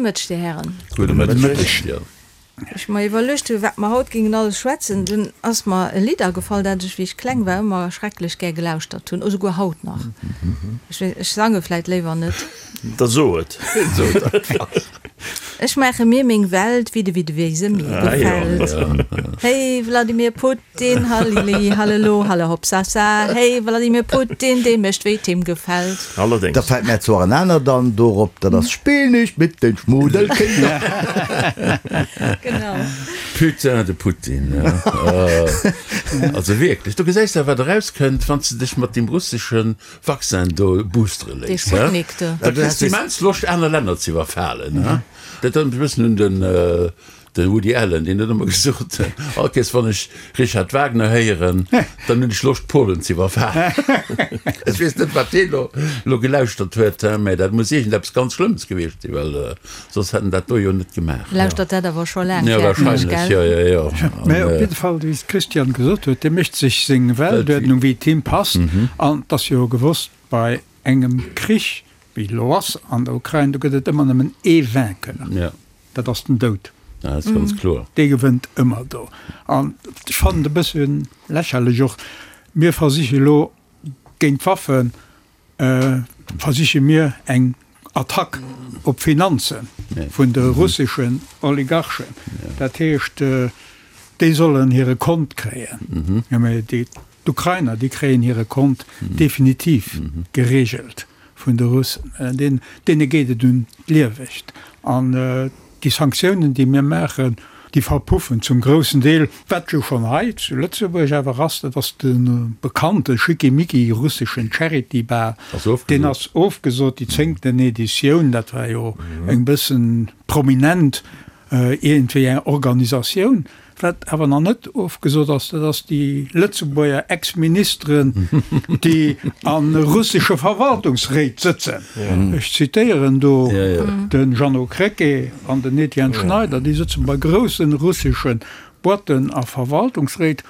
Mëtteg, Dir Hären. Gudde Mëtteg. Ech mer iwwerluecht hu wat mer haut gingen alles schwätzen, dunn ass mer e Lidd agefall, dat ech wéi ech kleng war ëmmer schrecklech gär gelauschtert hunn, esouguer haut nach. Ech weess, ech sange vläit léiwer net. Da so et. Ech maache mir meng Welt, wéi de wéi de wéi se mir gefält. Hey Vladimir Putin, hallili hallelo hallehopsasa, hey Vladimir Putin, dee mécht wéi 't him gefält. Allerdéngs. Da fällt mär zwar en anert an dorop, dat ass Spill nicht mit den Schmudelkinder. Genau. Putain de Putin, also wierklech, do gesäis de wat erauskënnt, wann s de dech mat deem russeschen Vaccin do boostere Dee léiss, hä? Sputnik do. Da kriss de immens Loscht aner Länner ze iwwerfalen, hä? Dat erënnert mech e bëssen un den De Woody Allen, deen huet ëmmer gesot, all Kéiers wann ech Richard Wagner héieren, dann hunn ech Loscht Polen ze iwwerfalen. Ech weess net wat deen elo elo gelauschtert huet, mä dat muss iergendeppes ganz Schlëmmes gewiescht sinn, well soss hätt en dat do jo net gemaach. Lauschtert dat awer scho laang Jo, fäerten ech, wahrscheinlech, gell? jo, jo, jo. Mä op jidde Fall, wéi d'Christiane gesot huet, dee mécht sech seng Weltuerdnung, wéi et him passt. An et ass jo gewosst, bei engem Krich, wéi elo ass an der Ukrain, do gëtt et ëmmer nëmmen ee Vainqueur. Dat ass den Doud. Dat ass ganz kloer. Dee gewënnt ëmmer do. An ech fannen et e bësse lächerlech och, mir versiche elo géint d'Waffe versiche mir eng Attack op d'Finanze vun de russeschen Oligarchen. Dat heescht, déi sollen hire Kont kréien. Jo, mä déi D'Ukrainer, déi kréien hire Kont definitiv gereegelt vun de Russen. Deene geet et un d'Liewecht. An déi Sanktiounen, déi mir maachen, déi verpuffen zum groussen Deel. Wat jo schonn hei zu Lëtzebuerg awer ass, dat ass de bekannte schickimicki russeschen Charity Bal. Deen ass ofgesot, déi zéngten Editioun. Dat war jo eng bëssen prominent iergendwéi eng Organisatioun. Wat awer nach net ofgesot ass, dat ass déi Lëtzebuerger Ex-Ministeren, déi a russesche Verwaltungsréit sëtzen. Ech zitéieren do de Jeannot Krecké an den Etienne Schneider, déi sëtzen bei grousse russesche Boîten a Verwaltungsréit,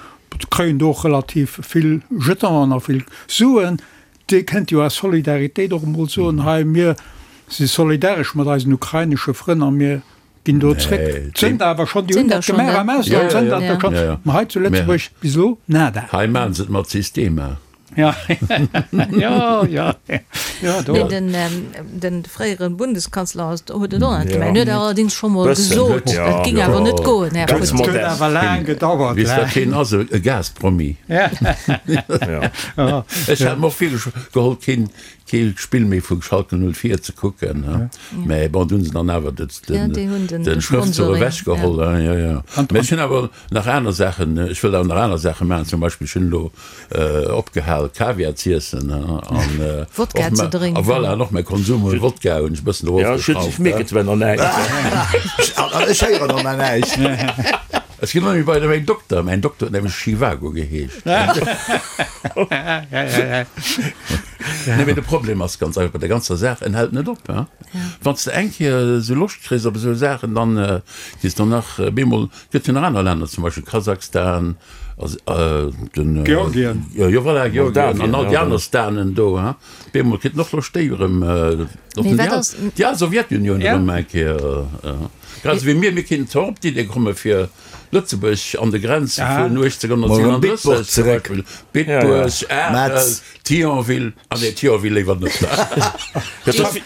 kréien do och relativ vill Jetonen a vill Suen. Dir kënnt jo aus Solidaritéit och emol soen, hei mir si solidaresch mat eisen ukrainesche Frënn a mir Ginn do zréck. Sënnt awer schonn, déi hunn dat gemaach am Ausland, sënnt dat do schonn, ma hei zu Lëtzebuerg bis elo nada. Hei maachen se et mat Systema. Jo, jo, jo, do. Nee, den, den fréiere Bundeskanzler ass, huet et och net gemaach. En huet allerdings scho mol gesot, dat ging awer net goen, Här Putin. Et huet awer laang gedauert. Weess wat hien ass? E Gaspromi. Ech hat mer och virgeholl, keen Kee Spill méi vu Schalke 04 ze kucken, mä bon, do hunn se dann awer de Schrëftzuch ewech geholl. Jo, jo. Mä ech hunn awer nach aner Saachen, ech wëll awer nach aner Saache maachen. Zum Beispill, ech hunn elo opgehal Kaviar z'iessen an Wodka ze drénken. A voilà, an och mäi Konsum un Wodka hunn ech e bëssen erofgeschrauft. Ech mierken zwar nach näischt. An ech héieren och nach näischt. Ech ginn ëmmer bei mäin Dokter. Mäin Dokter huet nämlech Schivago geheescht. Nee, mee de Problem ass ganz einfach bei der ganzer Saach, en hält net op. Wann s de eng Kéier esou Loscht kriss op esou Saachen, dann kriss de nach bemol, et gëtt jo nach aner Länner, zum Beispill Kasachstan, den Georgien, jo voilà, Georgien an all déi aner Stanen do, bemol kritt en och Loscht déi erëm, déi al Sowjetunioun erëm eng Kéier. Grad esou wéi mir, mir kéinten zwar op d'Idee komme fir Lëtzebuerg an de Grenze vun 1837 zum Beispill, Bitburg, Arel, Thionville, ah nee, Thionville léiwer net.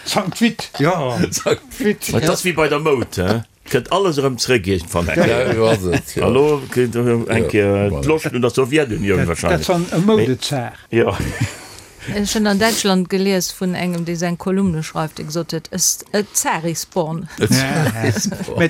Sankt Vith, jo. Sankt Vith. Et ass wéi bei der Moud, he, kënnt alles erëm zréck iergendwann eng Kéier. Jo, esou ass et, jo. A lo kritt erëm eng Kéier d'Loscht un der Sowjetunioun wahrscheinlech. Dat ass e Moudezar. Jo. Ech hunn an Däitschland gelies vun engem, dee seng Kolumne schreift, dee gesot huet, A Tsar is born. Mä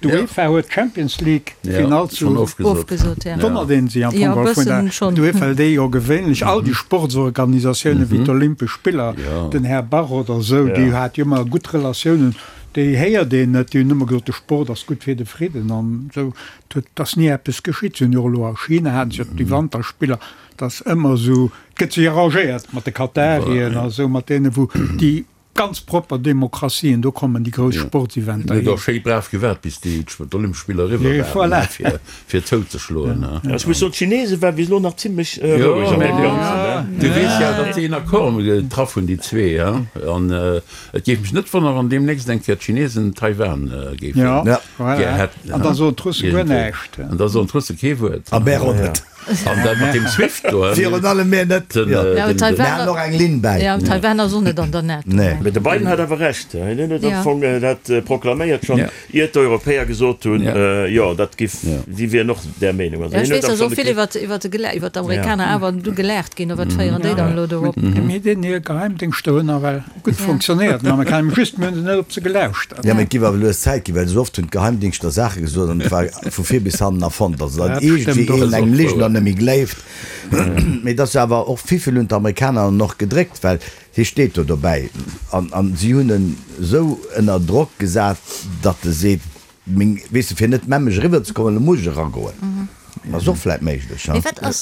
d'UEFA huet d'Champions League Finall zu Ofgesot, ja. Wonnert een sech am Jo, Fong e geholl vun der bëssen schonn. d'UEFA, déi jo gewéinlech all déi Sportsorganisatiounen wéi d'Olympesch Spiller, den Här Bach oder esou, déi hat jo ëmmer gutt Relatiounen, déi héiert een net. Déi hunn ëmmer gesot, de Sport ass gutt fir de Fridden an esou. Et ass ni eppes geschitt. Si hunn jo och elo a China haten se jo déi Wanterspiller. Et ass ëmmer esou, et gëtt sech arrangéiert mat de Katarien a sou, mat deene wou déi. Ganz propper Demokratien, do kommen déi grouss Sportseventer hin. Huet och schéi brav gewaart bis déi d'Olympesch Spiller eriwwer waren, fir zouzeschloen. Ech muss soen, d'Chinese waren bis elo nach zimlech roueg an deem Ganzen. Du weess jo, datt si een Accord getraff hunn, déi zwee, an et géif mech net wonneren, wann deemnächst eng Kéier d'Chinesen Taiwan géifen gär hätten. An da soen d'Russe guer näischt. An da soen d'Russe kee Wuert. A mär och net. An dat mat deem Swift do. Virun allem mir net. Mir han och eng Linn bäi. Jo, Taiwan ass och net an der NATO. Nee. Mee de Biden hat awer Recht. Hien huet am Fong dat proklaméiert schonn, iert d'Europäer gesot hunn, jo, dat giff, si wieren och där Meenung. Also hien huet am Fong. Ech weess, datt och vill iwwer d'Amerikaner awer du gelaacht ginn. Wat féieren déi dann elo do op? Mee deen hir Geheimdéngschter hunn nawell gutt fonctionnéiert, den Amerikaner. Just, mir hunn se net op se gelauschtert. Jo, mee et giff awer lues Zäit ginn, well esou oft hunn d'Geheimdingschter Saache gesot an et war vu vir bis hannen erfonnt. Also datt iergendwéi een engem Ligener net méi gleeft. Mee et ass jo awer och, wivill hunn d'Amerikaner en och gedréckt, well hie steet do dobäi an an si hunn en esou ënner Drock gesat, datt e seet, meng, weess de, fir net memmeg eriwwer ze kommen, elo muss ech eragoen. Ass och vläit méiglech, ha?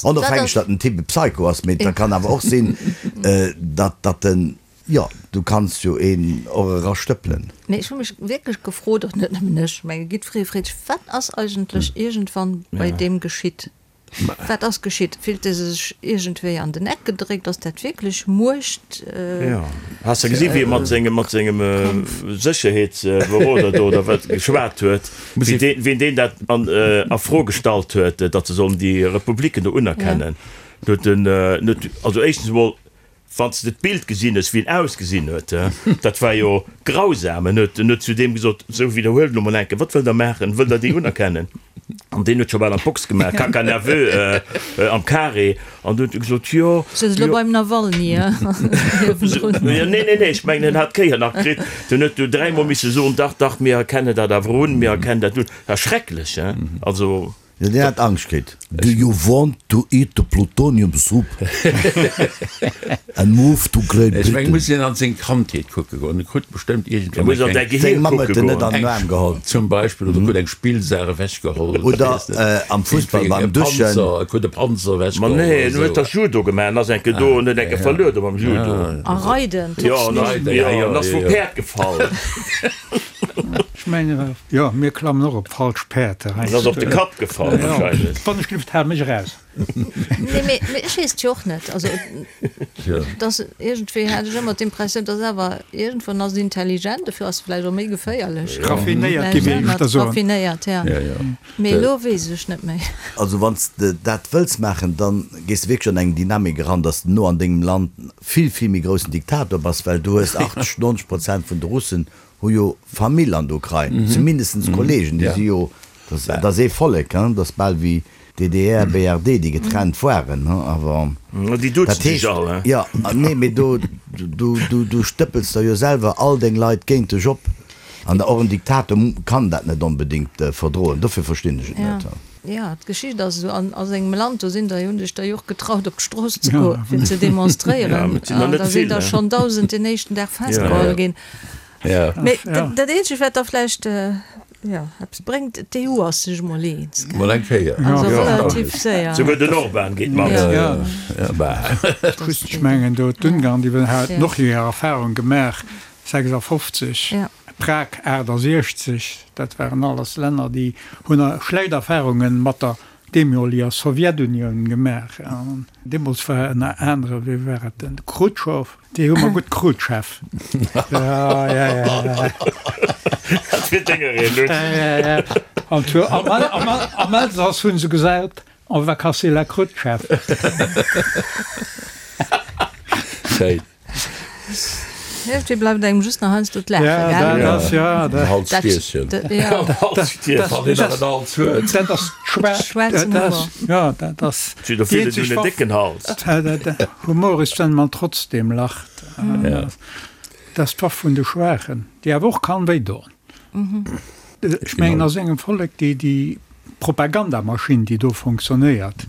Onofhängeg, datt den Typ e Psycho ass, mee et kann awer och sinn, datt datt en, jo, du kanns jo een och erastëppelen. Mee ech hu mech wierklech gefrot, och net nëmmen ech, menge jiddweree freet sech, wat ass eigentlech iergendwann bei deem geschitt? Wat ass geschitt? Fillt e sech iergendwéi an den Eck gedréckt? Ass dat wierklech Muecht? Jo, has de gesi wéi e mat sengem, mat sengem Sécherheetsberoder do oder wat geschwat huet, wéi deen, wéi deen dat an a Fro gestallt huet, datt se sollen déi Republiken do unerkennen. Do huet en, huet, also éischtens emol, Wann s de d'Bild gesinn hues, wéi en ausgesinn huet, dat war jo grausam. En huet, en huet zu deem gesot, Sou, widderhuelt elo mol eng Kéier, wat wëllt Der maachen? Wëllt Der déi unerkennen? An deen huet scho bal an d'Box gemaach, Caca nerveux am Carré. An du huet e gesot, Jo, Sëtz elo jo. beim Nawalny niewendrun. Jo, nee, nee, nee, ech mengen, en hat d'Kéier nach kritt. Den huet du dräimol misse soen, Dach, dach, mir erkennen dat awer un, mir erkennen dat un. Dat ass schrecklech, hein? Also. Jo, deen hat Angscht kritt. Do you want to eat the plutonium soup and move to Great Ech meng, Britain? muss een an seng Kandheet kucke goen. En krut bestëmmt iergendwann Muss an eng däi kleng. Gehier Seng Mamm kucke huet en net goen. an den Aarm geholl. Zum Beispill, oder krut eng Spillsaach ewechgeholl. Oder Oder weess net. am Fussball Iergendwéi beim e Duschen. Panzer, e krut e Panzer Ma ewechgeholl nee, oder en huet esou. dach Judo gemaach en ass eng Kéier do en huet eng Kéier verluer do mam Judo. A Reiden, Jo, en ass, Reiden, ja, jo, jo, en ass jo, vum jo. Päerd gefall. Ech mengen, jo, mir klammen och op falsch Päerd. En ass op de Kapp gefall wahrscheinlech. Wann ech gelift, hal mech eraus. Nee, mee ech weess et jo och net. Also, et ass iergendwéi, hat ech ëmmer d'Impressioun, dass awer iergendwann ass et intelligent, dofir ass e vläicht och méi geféierlech. Raffinéiert, géif ech éischter soen. Raffinéiert, ja. Mee elo weess ech net méi. Also wann s de dat wëlls maachen, da gees de wierklech an eng Dynamik eran, dass de no an dengem Land vill, vill méi groussen Diktator bass, well du hues 80, 90 Prozent vun de Russen hu jo Famill an der Ukrain, zumindestens Kollegen, déi si jo, dat ass ee Vollek, dat ass bal wéi DDR, BRD, déi getrennt waren, awer Déi duzen dat sech heescht, all, he? jo, nee, mee do, du, du, du stëppels der jo selwer all deng Leit géint dech op, an och en Diktator kann dat net onbedéngt verdroen, dofir verstinn ech et net. Jo, d'Geschicht ass esou. An a sengem Land, do sinn der, hunn sech der jo och getraut op d'Strooss ze goen, fir ze demonstréieren. An da sinn der schonn 1.000 den éischten Dag festgeholl ginn. Mee dat eenzegt, wat da vläicht, jo, eppes bréngt, d'EU ass sech emol eens, gell? Mol eng Kéier. Also relativ séier. Souguer den Orban geet mat. Just, ech mengen do d'Ungarn, déi haten och hir Erfahrung gemaach, 56. Prag 68, dat waren alles Länner, déi hunn schlecht Erfahrunge mat der deemoliger Sowjetunioun gemaach. An deemools war ënner anere, wéi war et, den Chrutschow, déi hu mer gutt Krutscheff. Ja, ja, ja. Dat wier denger een, Lutz. Ja, ja. An am Elsass hu se gesat, On va casser la croûte, chef. Schéin. Iergendwéi bleift engem just nach heiansdo d'Laachen, Ja, gell? dat ass, ja, dat. En Halsstierchen. Dat, ja. En Halsstierchen, wann een nach en Hals huet. Dat ass schwa-, Schwaarzen dat Humor. ass, ja, dat ass Si der déi vill eenzeg hunn en Waff. décken Hals. Humor ist, wenn man trotzdem lacht. Ja. Dat ass d'Waff vun de Schwaachen, déi awer och kann wéidoen. Ech mengen, a sengem Vollek, déi, déi Propagandamaschinn, déi do fonctionnéiert,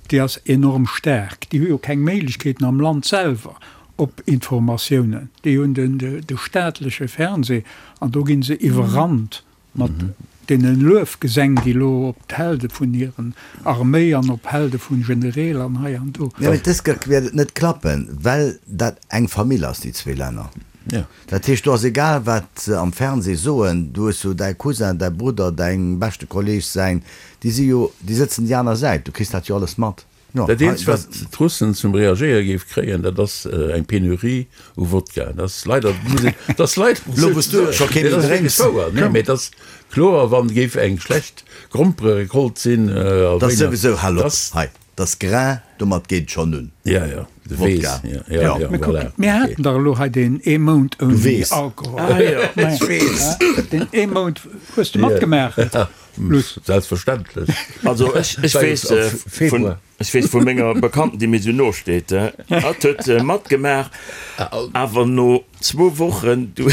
déi ass enorm staark. Déi hu jo keng Méiglechkeeten am Land selwer op Informatiounen. Déi hunn den, de staatleche Fernseh an do gi se iwwerrannt mat deene Luefgesäng, déi elo op d'Helde vun hiren Arméi an op Helde vun Genereel an hei an do. Jo, mee dës Kéier wäert et net klappen, well dat eng Famill ass, déi zwee Länner. Dat heescht, do ass egal wat se am Fernseh soen, du hues jo däi Cousin, däi Brudder, däin beschte Kolleg säin, déi si jo, déi sëtzen déi aner Säit, du kriss dat jo alles mat. Jo, Dat eenzegt wat d'Russen zum Reagéiere géif kréien, dat ass eng Penurie u Wodka. Dat ass leider, muss een, dat ass leider Elo wou s du scho kee méi drénks. Wouer, nee, mee et ass kloer, wann géif eng schlecht Grompererecolte sinn a Dat ass wéi nach, souwisou, hal op hei. Dass Grain, domat geet et schonn un. Ja, ja, de Weess. Wodka. Ja, ja, ja, Mä kuck, voilà. mir haten dach elo hei deen ee Mount ouni weess. Alkohol. Ah jo, ech weess. Deen ee Mount hues de matgemaach, Luss. Selbstverständlech. Also ech, ech weess vun, ech weess vu menger Bekannten, déi mir esou no steet, hatt huet matgemaach, awer no Zwou Wochen, du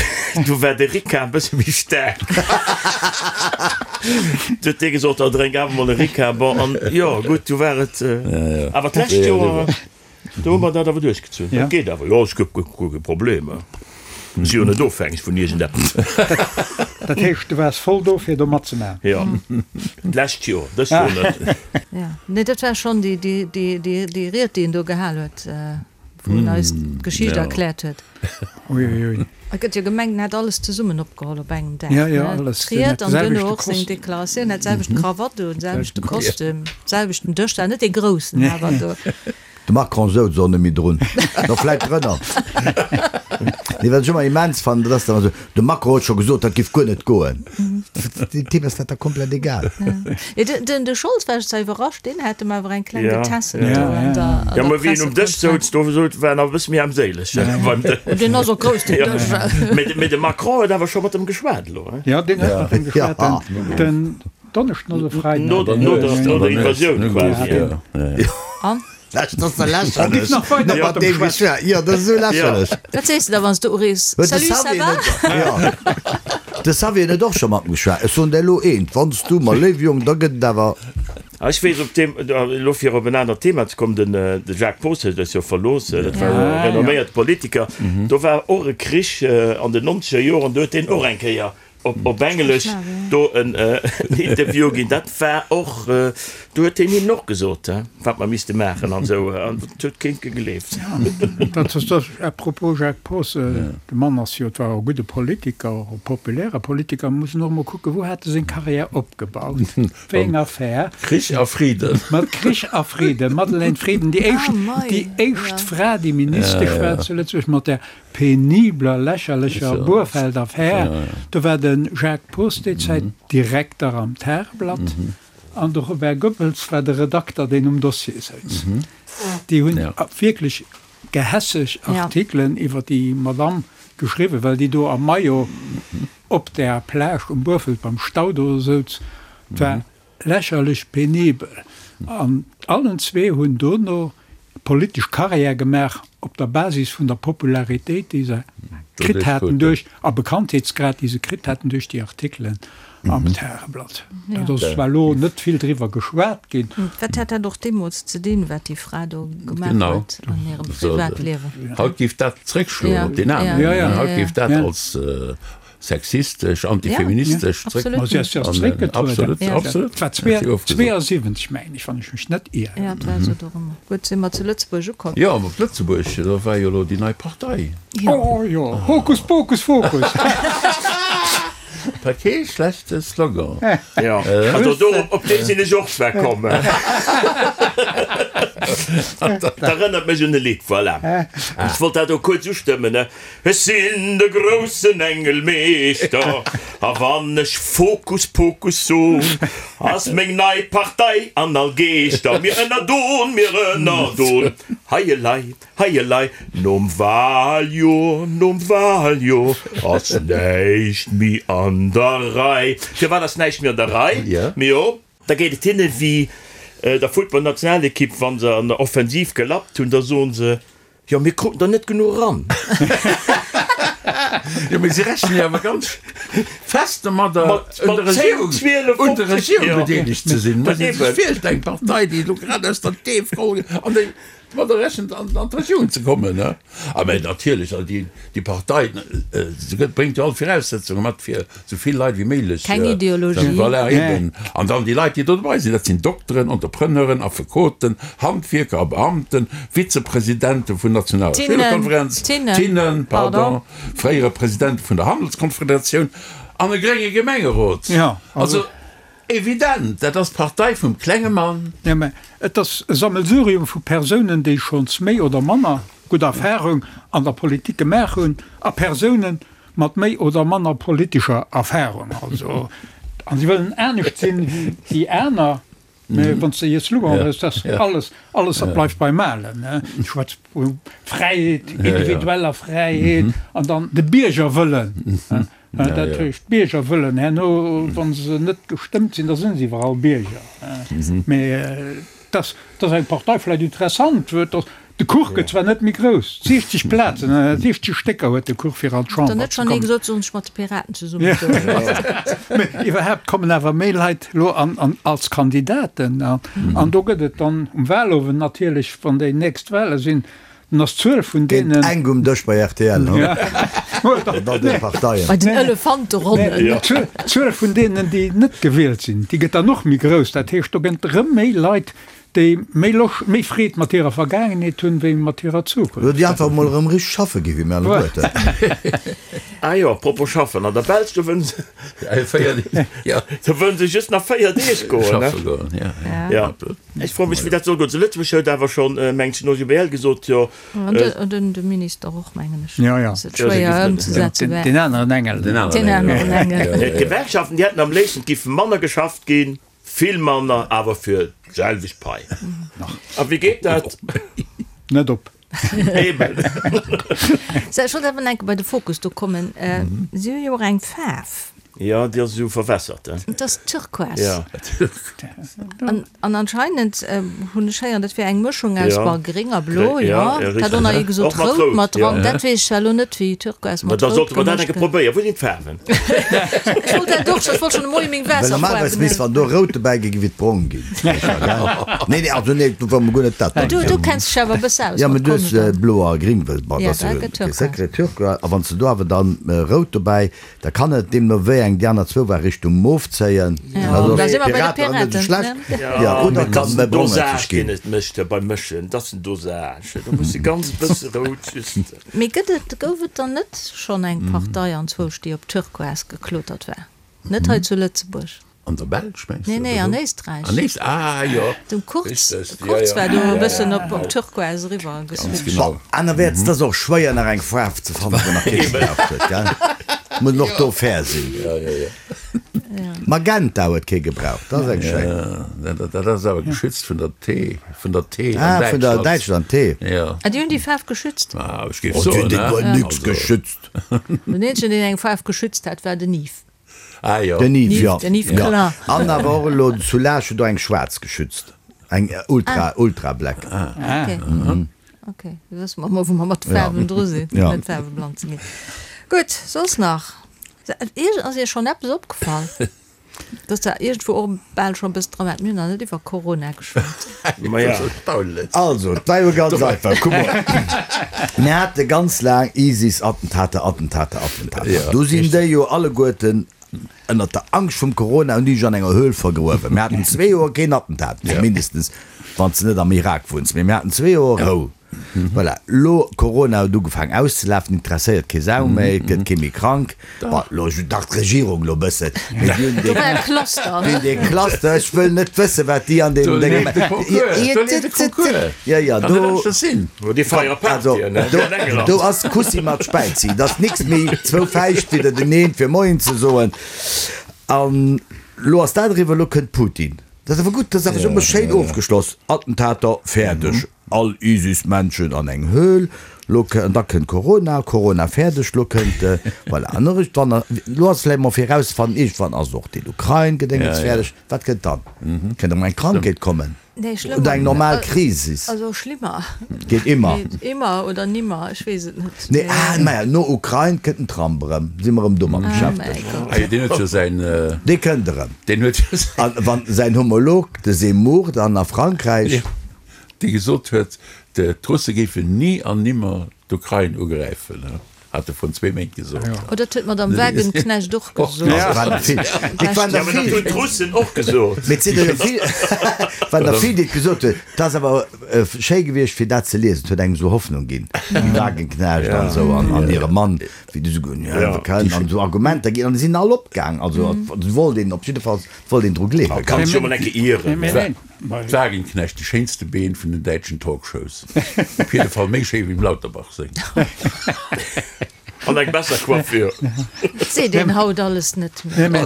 war de Ricard e bësse méi staark. Du huet dee gesot, da drénk awer mol e Ricard. Bon, an jo, gutt, du war et. Awer d'lescht Joer, do hu mer dat awer duerchgezunn. Dat geet awer, jo, ech guer kee Problem. Ech si jo net ofhängeg vun iergendeppes. Dat heescht, du waars voll do, fir do matzemaachen? Jo, d'lescht Joer, dëst Joer net. Jo, nee, dat war schonn déi Ried, déi en do gehal huet. Wou en eis d'Geschicht erkläert huet. Uiuiui. Et gëtt jo gemengt, en hätt alles zesummen opgeholl op engem Dag. Ja, ja, alles. D'Ried an duerno och seng Deklaratioun, hat d'selwecht Krawatt un, selwechte Kostüm, selwechten Dësch, dat net dee groussen awer do. De Macron souz och net méi drun, no vläit drënner. Nee, wat ech ëmmer immens fannen, dat ass dann esou, De Macron huet scho gesot, dat giff guer net goen. Deem Typ ass dat da komplett egal. Den de Scholz war ech zwar iwwerrascht, deen hat em awer eng kleng getässelt do an der Ja, mä wéi en um Dësch souz, do war en awer e bësse méi armséileg beim Dësch. Deen ass och grouss, deen Dësch. Mä de Macron huet awer scho mat em geschwat elo, hein? Jo, deen huet mat em geschwat den Donneschden oder Freiden. No der Invasioun quasi. An? Dat ass da lächerlech. Nach mat deem geschwat. Jo, dat ass esou lächerlech. Wat sees de da, wann s de urees? Huet de Salut, ça Xavier va? net, jo. De Xavier huet och scho mat em geschwat. Ech soen der elo eent, Wann s du, ma léiw Jong, da gëtt et awer. Ah, ech weess op deem, elo fir op en anert Thema ze kommen, den de Jacques Poos huet eis jo verlooss, dat war jo e renomméierte Politiker. Do war och e Krich an den nonzeger Joren, do huet deen och eng Kéier op Englesch do en Interview ginn. Dat war och, do huet hien hinnen och gesot, wat mer misste maachen an esou, an dat huet keen gegleeft. Dat ass dat, à propos Jacques Poos, de Mann ass jo, et war e gudde Politiker, och e populäre Politiker, muss en och emol kucken, wou hat e seng Carrière opgebaut, wéi eng Affär. Krich a Friden. Mat Krich a Friden, Madeleine Frieden, déi éischt, déi éischt Fra, déi Ministesch war zu Lëtzebuerg, mat där penibler, lächerlecher Burfelt-Affär. Do war de Jacques Poos déi Zäit Direkter am Tageblatt an de Robert Goebbels war de Redakter, deen um Dossier souz. Déi hunn wierklech gehässeg Artikelen iwwer déi Madamm geschriwwen, well déi do am Maillot op där Plage um Burfelt beim Stau do souz. Et war Lächerlech penibel. An allen zwee hunn dono politesch Carrière gemaach op der Basis vun der Popularitéit, déi se kritt haten duerch, a Bekanntheetsgrad, déi se kritt haten duerch déi Artikelen am Tageblatt. Dat ass zwar elo net vill driwwer geschwat ginn. Wat hat dat och deemools ze dinn, wat déi Fra do gemaach huet an hirem Privatliewen? Haut géif dat zréckschloen op deen aneren. Haut géif dat als Sexistesch, antifeministesch zréck. Ma si ass jo zréckgetrueden. Absolut, absolut. Et war 72, mengen ech, wann ech mech net ieren. Ja, et war esou dorëmmer. Gutt, si mer zu Lëtzebuerg ukomm. Jo, op Lëtzebuerg, do war jo elo déi nei Partei. Oh jo, Hokus Pokus Fokus. War kee schlechte Slogan. Jo, also do, op dee sinn ech och zwar komm. Dat erënnert mech un e Lidd, voilà. Ech wollt dat och kuerz ustëmmen. Ech sinn de groussen Engelmeeschter, a wann ech Fokus Pokus son, ass meng nei Partei an all Geeschter. Mir ënnerdon, mir ënnerdon, hei elei, hei elei, nom Wahljoer, nom Wahljoer ass näischt méi an der Rei. Firwat ass näischt méi an der Rei? Mio, da geet et hinne wéi der Footballnationalekipp, wa se an der Offensiv gelappt hunn, da soen se, Jo, mir kruten der net genuch eran. Jo, mee si rechnen jo awer ganz fest domadder, un der Regierung, un der Regierung bedeelegt ze sinn. Muss ee sech virstellen, eng Partei, déi elo grad aus der Deef geholl gëtt, an déi. domadder rechent, an d'Regierung ze kommen. A mä natierlech, also déi, déi Partei, se gëtt, bréngt jo all Viraussetzunge mat, fir esou vill Leit wéi méiglech. Keng Ideologie. Voilà, eben. An dann déi Leit, déi do dobei sinn, dat sinn Dokteren, Entrepreneuren, Affekoten, Handwierker a Beamten, Vizepresidente vun nationaler Schülerkonferenz, Tinnen, Tinnen, pardon, fréiere Presidente vun der Handelskonfederatioun an e grénge Gemengerot. Also. Evident, dat ass d'Partei vum klenge Mann. Jo, mä et ass e Sammelsurium vu Persounen, déi schonns méi oder manner gutt Erfahrung an der Politik gemaach hunn, a Persounen mat méi oder manner politescher Erfahrung. Also, a si wëllen anescht sinn wéi déi aner. Mä wann s de hir Slogan hues, dass alles, alles dat bleift beim Alen, ne? Ech schwätze vu Fräiheet, individueller Fräiheet an dann de Biergerwëllen. Dat heescht, d'Bierger wëllen herno, wa se net gestëmmt sinn, da si se iwwerall Bierger. Mä dass eng Partei vläicht interessant huet, dass de Kuch gëtt zwar net méi grouss, 60 Plazen, 60 Stécker huet de Kuch fir an d'Chamber ze kommen. Mä iwwerhaapt kommen awer méi Leit elo an als Kandidaten. An do gëtt et dann um Wahlowend natierlech, wann déi nächst Wahle sinn, Dann ass d'Zuel vun deenen. Géint enk um Dësch bei rtl, hu? Mat all deene Parteien. Bei den Elefanteronnen. D'Zuel vun deenen, déi net gewielt sinn, déi gëtt dann och méi grouss. Dat heescht, do gëtt erëm méi Leit, déi méi Loscht, méi Freed mat hirer Vergaangenheet hunn, wéi mat hirer Zukunft. Oder déi einfach emol erëm richteg schaffe ginn, wéi mir alleguerten. Ah jo, apropos schaffen, an der Belsch, do wëllen se, do wëllen se just nach 4 Deeg goen, ne? Schaffe goen, ja. Ech froe mech, wéi dat soll goen. Zu Lëtzebuerg huet awer schonn, mengen ech, den OGBL gesot, jo. An de Minister och, mengen ech. Jo, jo. Dass et schwéier ëmzesetze wär. Deen aneren Engel. Deen aneren Engel. D'Gewerkschaften, déi hätten am léifsten, et giff manner geschafft ginn, vill manner, awer fir d'selwecht Pai. A wéi geet dat? Net op. Eben. Sou, ech wollt awer nach eng Kéier bei de Fokus do kommen. Si hu jo och eng Faarf. Jo, déi ass esou verwässert, he? Et ass Turquoise. Ja. An, an anscheinend hunn ech héieren, dat wär eng Mëschung aus, bon, gréng a blo, jo. Ja, Dat och nach ee gesot, Och mat rout rout, mat ja. dran. Dat weess ech zwar elo net, wéi Turquoise Ma mat da rout sollte mer dat gemëscht enke gëtt. probéieren. Wou sinn d'Faarwen? Ech wollt dat och, ech wollt schonn de Moie meng Well normalerweis Waasserfaarwen misst, wann do rout dobäi gi, géif et brong ginn. Nee, nee, also nee, do war mer guer net dat. Du, du kenns dech awer e bësse aus Ja, mat mä du hues Konscht. blo a gring, well, bon, Ja, dat ass da jo gëtt e Turquoise. Secret, Turquoise. A wann s de do awer dann rout dobäi, Da kann et, deemno wéi eng déi aner zwou war, Richtung Mof zéien. Jo, da si mer bei de Piraten net esou Piraten, schlecht. ne? Jo, oder Mee kann dat ass méi den brongëtzeg Dosage, deen ginn. et mécht beim Mëschen. Dat ass den Dosage. Do muss e ganz bësse rout just. Mee gëtt et, gouf et dann net schonn eng Partei anzwousch, déi op Turquoise geklotert war? Net hei zu Lëtzebuerg? An der Belsch mengs Nee, de? nee, an Éisträich. An Éist, ah jo. Den Kurz, Richtig, ja, Kurz ja. war do e Ja, bëssen ja. op, op Turquoise eriwwer Ganz geswitcht. genau. Bon, anerwäerts, et ass och schwéier nach eng Faarf ze fannen, wou nach kee gebraucht huet, gell? Muss een och do fair sinn. Ja, ja, ja. Magenta huet kee gebraucht, dat ass eng schéin. Ja, dat, dat ass awer geschützt vun der T, vun der T an Ah, vun der Däitschland. Däitschland, T. Ja. Ah, déi hunn déi Faarf geschützt? Ah, ech géif Oh, déi soen, hunn ne? guer nix Also. geschützt. Den eenzegen, deen eng Faarf geschützt hat, war den Yves. Ah jo. Den Yves, jo. Den Yves Klein. An awer och elo zu Laascht huet och eng schwaarz geschützt. Eng Ultra, Ultra Black. Ah, ok. Ok, da wësse mer emol, wou mer mat de Faarwen dru sinn, fir net faarweblann ze ginn. Gutt, soss nach? Ass Iech schonn eppes opgefall? Dass der iergendwou och bal schonn e bëssen dran waart? Mir hunn nach net iwwer Corona geschwat. Also, et war jo ganz einfach. Kuck mol, mir hate ganz laang ISIS, Attentater, Attentater, Attentater. Du sinn déi jo alleguerten ënnert der Angscht vum Corona hunn déi sech an enger Höhl vergruewen. Mir haten zwee Joer keen Attentat, mindestens wann s de net am Irak wunns, mee mir haten zwee Joer Rou. Voilà, lo Corona huet ugefaang auszelafen, interesséiert kee Sau méi, et gëtt kee méi krank. Bon, lo dach d'Regierung lo bëssen, mee déi hunn Do war e Cluster. dee, dee Cluster, ech wëll net wëssen, wat déi an deem Do Dénge leeft de Concours, do leeft de Concours. Jo, jo, Kann do, net aneschters sinn. Déi feiere also, Partyen, ne, do, an England. do ass Kussi mat Späizi, et ass nix méi zwou Fäischt widderteneen, fir Moien ze soen. An lo ass dat eriwwer, lo kënnt Putin. Dat ass awer gutt, dat ass awer esou emol schéin ofgeschloss, Attentater, fäerdeg. All ISIS-Menschen an eng Höhl, lo an da kënnt Corona, Corona fäerdeg, lo kënnt, voilà, an iergendwann, lo ass vläicht mol fir erauszefannen, iergendwann ass och den Ukrain-Gedéngens fäerdeg, wat kënnt dann? Kënnt erëm eng Krankheet kommen oder eng normal Krisis? Also schlimmer. Geet immer. Immer oder nimmer, ech weess et net. Nee, ah, maja, no Ukrain kënnt den Trump erëm, si mer erëm domat beschäftegt. Ah jo, deen huet jo säin. Dee kënnt erëm. Deen huet jo säin. An wann säin Homolog, de Zemmour, dann a Frankräich. Dee gesot huet. D'Russe géifen ni an nimmer d'Ukrain ugräifen, hat e vrun zwee Méint gesot. Oh, dat huet d'Madame Wagenknecht och gesot. Et waren der vill. Et waren der Jo, mä dat vill. hunn d'Russen och gesot. Mee et sinn der jo vill, et waren der vill, déi et gesot hunn. Et ass awer schéi gewiescht, fir dat ze liesen. Et huet engem esou Hoffnung ginn, déi Wagenknecht an esou an hire Mann, wéi déi esou, jo, wir können, an esou Argumenter ginn. An déi sinn all opgaang. Also, et wollt een op jidde Fall, et wollt een dru gleewen. Kann sech jo mol eng Kéier ieren. D'Wagenknecht, déi schéinste Been vun den däitschen Talkshows. Op jidde Fall méi schéi wéi dem Lauterbach seng. An eng besser Coiffure. Et seet een haut alles net méi.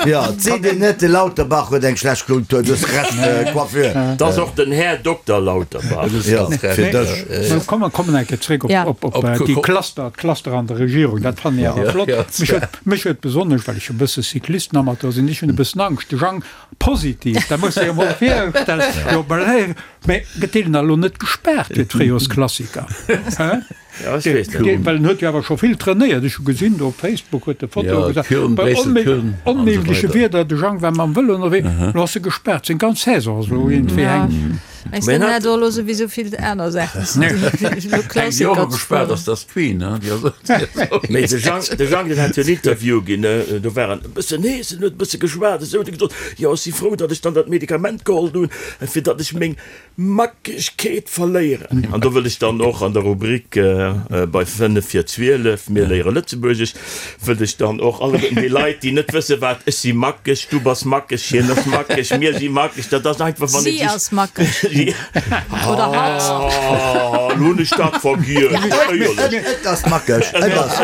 Jo, et seet een net, de Lauterbach huet eng schlecht Kultur, du hues Recht, Coiffure. Et ass och den Här Dokter Lauterbach. Jo, fir dech. Komm, mer kommen eng Kéier zréck op déi Cluster, d'Cluster an der Regierung. Dat fannen ech awer flott. Mech huet, mech huet besonnesch, well ech e bësse Cyclistenamateur sinn, ech hunn e bëssen Angscht, de Jang Positiv, dat muss de jo mol virstellen. Jo, mä mä gëtt deen da lo net gespaart fir d'Fréijorsklassiker? Hä? Ja, ech weess net. Well en huet jo awer scho vill trainéiert. Ech hu gesinn do op Facebook huet e Fotoe Ja, gesat, Köln, bei Bréissel, onméi Köln an esou onméigleche weider. Wieder, de Jang war mam Vëlo ënnerwee, lo ass e gespaart, seng ganz Saison ass elo iergendwéi Ja. hängen. Mengs de, Mä en hat hätt och elo souwisou vill aner Saachen ze dinn, wéi elo Eng, déi och Klassiker ze gespaart fueren? ass, dat ass d'Queen, ne? Déi ass och, déi ass och. Mee de Jang, de Jang, deen hat jo en Interview ginn, ne, do war en e bëssen hees, en huet e bësse geschwat esou, huet e gesot, jo, ech si frou, datt ech dann dat Medikament geholl hunn, fir datt ech meng Mackegkeet verléieren. An do wëll ech dann och an der Rubrik bei 5 vir 12, mir léiere Lëtzebuergesch, wëll ech dann och alleguerten déi Leit, déi net wësse wat, ech si mackeg, du bass mackeg, hien ass mackeg, mir si mackeg, dat ass einfach, wann ee Si sech. ass mackeg. Oder hatt. Oh, lo hunn ech dat vergiess. Éierlech. Et ass mackeg. Et ass,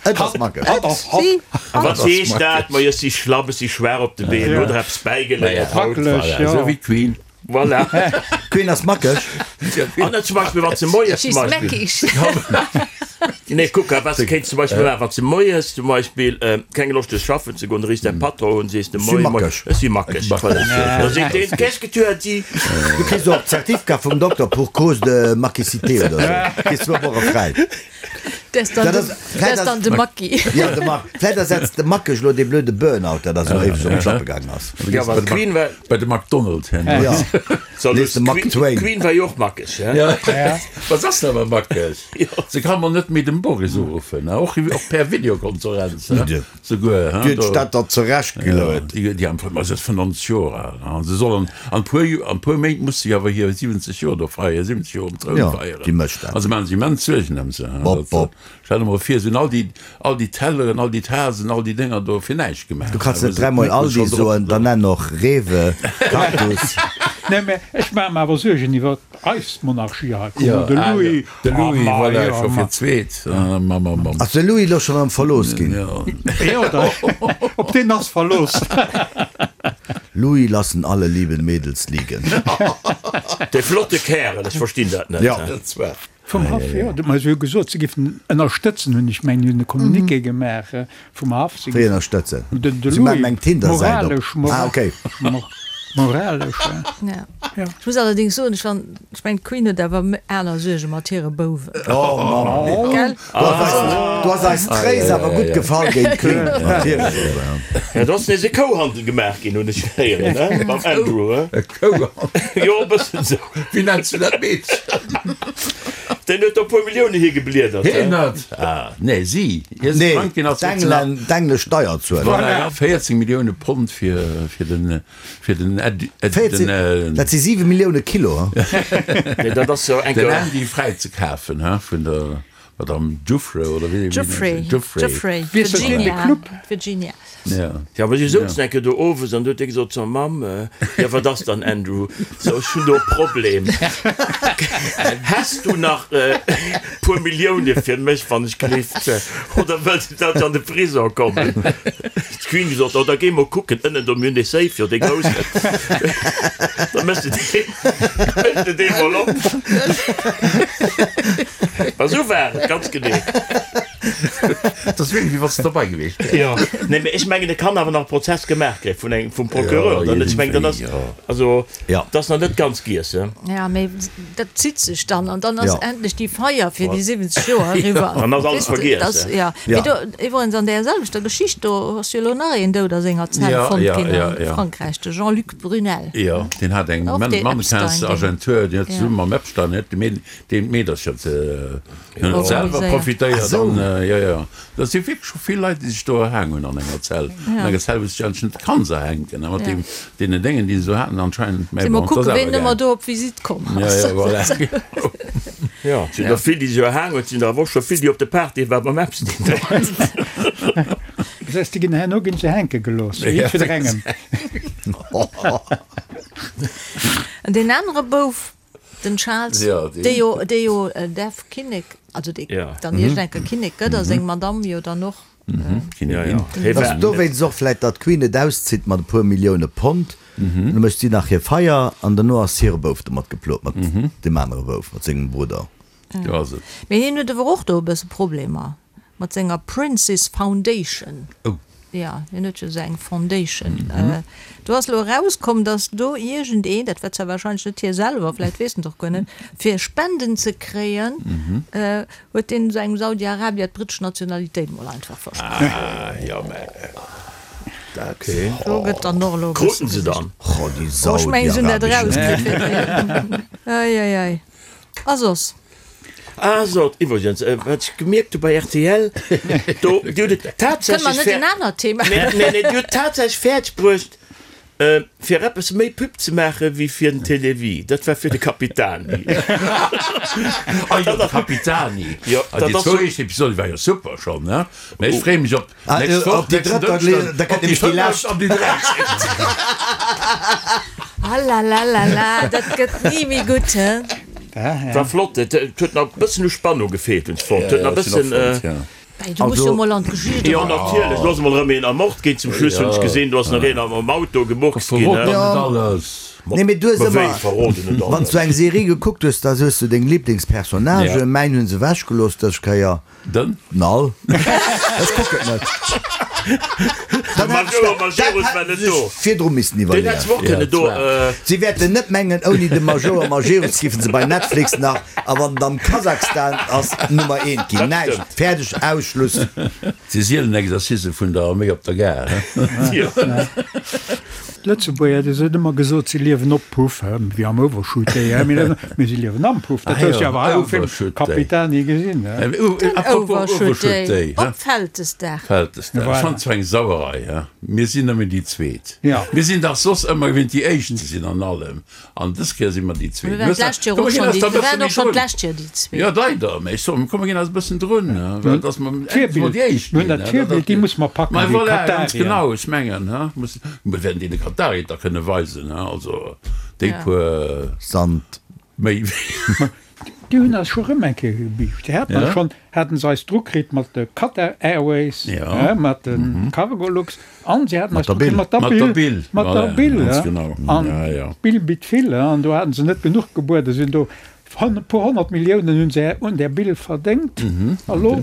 et ass mackeg. Et, si, A wat hatt. heescht dat? Majo, ech si schlapp, ech si schwaach op de Been, huet der eppes bäigeléiert haut? Wackeleg, Voilà, jo. esou wéi d'Queen. Voilà. Queen ass mackeg. An zum Beispill, wann se moies zum She's Beispill. meckig. Nee, kuck, wat se kéint zum Beispill maachen, wann se moies zum Beispill keng Loscht hues schaffen ze goen, da riffs däi Patron un, sees de, Si Moie, moie, mackeg. ech si mackeg. Voilà. Da seet deen, Qu'est-ce que tu as dit? Du kriss och d'Zertifka vum Dokter pour cause de mackicité oder esou. Kriss zwou Woche fräi. Dat ass dann de Macki. Ja, de Mack. Vläit ersetzt de Mackeg elo dee blöde Burnout, dat ass elo éiweg op d'Schlappe gaangen ass. Ja, well d'Queen war. Bei de McDonald hin. Ja. Nees de Mack Twain. D'Queen war jo och mackeg, hä? Ja. Wat ass se awer mackeg? Se ka mol net méi dem Boris uruffen, och per Videokonferenz. Souguer, Déi huet sech dat der zurecht geluet. Déi am Fong, se ass 95 Joer al, an se soll an an puer an puer Méint muss se awer hir 70 Joer do feieren, 70 Joer um Troun Ja, feieren. déi mécht dat. Also se maachen sech immens Suergen ëm se. Bop, bop. Stell der mol vir, se hunn all déi all déi Telleren, all déi Tasen, all déi Dénger do fir näischt gemaach. Du kanns net dräimol Aldi soen, dann nenn och Rewe, Cactus. Nee, mä ech maache mer awer Suergen iwwer eis Monarchie hei. Kuck mol, de Louis. De Louis, voilà, scho fir d'zweet. Ass de Louis elo schonn erëm verlooss ginn? Jo, op deen ass verlooss. Louis lassen alle lieben Mädels liegen. Dee flotte Kärel, ech verstinn dat net. Jo. Vum Haff, jo. Ma se hu gesot, se géifen ënnerstëtzen, hunn ech mengen, hunn e Communiqué gemaach vum Haff. Wéi ënnerstëtzen? Den Se maachen Louis, eng Tinder-Säit op. moralesch, Ah, okay. moralesch, Ja. ja. Ech muss allerdéngs soen, ech fan, ech mengen d'Queen huet awer aner Suerge mat hire Bouwen. Oh Mann. Gell? Du ass eis, du ass eis Tréis awer gutt gefall géint d'Queen mat hire Bouwen. Ja, do ass nees e Kouhandel gemaach ginn, hunn ech héieren, he? Mam Andrew, he? E Kouhandel? Jo, e bëssen esou. Wéi nenns du dat Meedchen? Deen huet do e puer Millioune higebliedert, he? Hien huet, ah, nee, si. Hie Nee, Franken ass d'Englen, d'englesch Steierzueler. Voilà, 14 Millioune Pond fir, fir den, fir den Ed, Ed, 14, den, dat si 7 Millioune Kilo, he? Nee, dat ass jo eng. Den Andy fräizekafen, he, vun der Madame Giuffre, oder wéi? Giuffre, Giuffre. Giuffre, Wie ass dat deen, de Virginia, Club? Virginia. Ja. Ja, mä si souzen eng Kéier do owes an du huet dee gesot zur Mamm, Jo, wat ass dann, Andrew? So, ech hunn do e Problem. Häss du nach e puer Millioune fir mech, wann ech gelift? Oder wëlls du, datt ech an de Prisong kommen? D'Queen gesot, Oh, da géi mol kucken ënnen do, mir hunn dee Safe jo, dee groussen. Da méchs de dee, méchs de dee mol op. Ma sou war et, ganz genee. Dat ass wierklech, wéi wann s de derbei gewiescht wäers. Jo, nee, mee ech mengen, et kann awer nach e Prozess gemaach ginn vun engem, vum Procureur dann. Ech mengen, dat ass, also, dat ass nach net ganz giess, he. Ja, mee dat zitt sech dann an dann ass endlech déi Feier fir déi 70 Joer eriwwer. Dann ass alles vergiess, he. Jo, mee do, iwwerens an där selwechter Geschicht, do ass jo elo nach een dout a senger Zell fonnt ginn a Frankräich, de Jean-Luc Brunel. Jo, deen hat eng Mannequinsagentur, deen huet zesumme mam Epstein, huet deen d'Meedercher selwer profitéiert an jo, jo, dat si wierklech scho vill Leit, déi sech do erhaang hunn an enger Zell, an enger Zell, wou s de dech eigentlech net kanns erhänken, a mat deem, deenen Déngen, déi se do haten anscheinend, mä bon, et ass awer gaangen. Mol kucken, ween ëmmer do op Visitt komm ass. Jo, jo, voilà. Jo, et sinn der vill, déi sech erhaang hunn, et sinn der awer och scho vill, déi op de Partye war beim Epstein. Das heißt, déi ginn herno ginn se hänke gelooss, jiddwerengem. An deen anere Bouf, den Charles, dee jo, dee jo däerf Kinnek, also dee dann iergend eng Kéier Kinnek gëtt, a seng Madamm jo dann och. Kinnigin. Ass dowéinst och vläit, datt d'Queen et auszitt mat e puer Millioune Pond, da mécht si nach hir Feier an derno ass hire Bouf domat geplot, mat deem anere Bouf, mat sengem Brudder. Mee hien huet awer och do e bësse Problemer. Mat senger Prince's Foundation. Oh. Jo, hien huet jo esou eng Foundation. Do ass elo erauskomm, datt do iergendeen, dat war zwar wahrscheinlech net hie selwer, vläicht weess en et och guer net, fir Spenden ze kréien, huet deen esou engem Saudi-Arabier d'brittesch Nationalitéit mol einfach versprach. Ah, jo, mä dat. Do gëtt dann och elo e bësse Kruten se dann? Oh, déi Oh, ech mengen, se hunn dat saudiarabesch. erauskritt. Ei, ei, ei. A soss? Ah sot, iwwregens, wat ech gemierkt hu bei rtl, do, déi hunn et Kënne mer tatsächlech net en anert Thema? Nee, nee, nee, déi hunn et tatsächlech fäerdeg bruecht, fir eppes méi Pub ze maache wéi fir den Télévie. Dat war fir de Capitani. Ah jo, de Capitani. Jo, dat ass. Déi zwou éischt Episode war jo super schonn, ne? Mä ech freeë mech op Nächst Woch, Op déi nächsten drëtt, Dënschden, da op kënnt déi nämlech déi lescht. fënneft an déi dräizéngt. Alalalala, dat gëtt ni méi gutt, he? War flott, et huet nach e bëssen u Spannung gefeelt, hunn ech fonnt. Huet nach e bëssen. Bäi, du muss jo mol an d'Geschicht Jo, eran. natierlech, do ass emol erëm een ermort ginn zum Schluss, hunn ech gesinn. Do ass nach een am Auto gemurkst ginn. Verrot der net alles. Nee, mee du hues Ma wéi, ëmmer, verroden net wann s alles? du eng Serie gekuckt hues, da hues du deng Liblingspersonnagen. Mäin hunn se ewechgelooss dës Kéier. Den? Nall. Ech kucken et net. De Major Majerus war net do. Virdru missten Den hätt se och kënne do. Si wäerten net mengen, ouni de Major Majerus giffen se bei Netflix nach, a wann et am Kasachstan ass, Nummer eent ginn. Näischt. Fäerdeg. Aus. Schluss. Si sielen Exercicë vun der Arméi op der Gare. D'Lëtzebuerger, déi hunn ëmmer gesot, si liewen op Puff, wéi am Overshoot Day, mee si liewen am Puff. Dat hues du awer hei am Film Capitani gesinn. Den Overshoot Day op Vältesdag. Vältesdag, ech fannen zwar eng Sauerei, he, mir sinn nëmmen déi Zweet. Mir sinn dach soss ëmmer gewinnt déi Éischt ze sinn an allem. An dës Kéier si mer déi Zweet. Mir waren d'lescht Joer och schonn déi, mir waren och schonn d'lescht Joer déi Zweet. Jo, leider, mä ech soen, komm, mir ginn eis e bëssen drun, well dass mer endlech mol déi Éischt Mir hunn dat Virbild, déi musse mer packen, Mä déi voilà, ganz Katarier. genau, ech mengen, he, muss, mir wäerten deene Katarier et da kënne weisen, he, also déi puer Sand. méi wéi. Déi hunn eis scho rëm eng Kéier gebiischt. Déi haten eis schonn, haten se eis dru kritt mat de Qatar Airways, mat de Cargolux an se haten eis dru kritt mat der Bill, mat der Bill, an d'Bill bitt vill, an do haten se net genuch gebueden, sinn do e puer 100 Milliounen hunn se un där Bill verdéngt a lo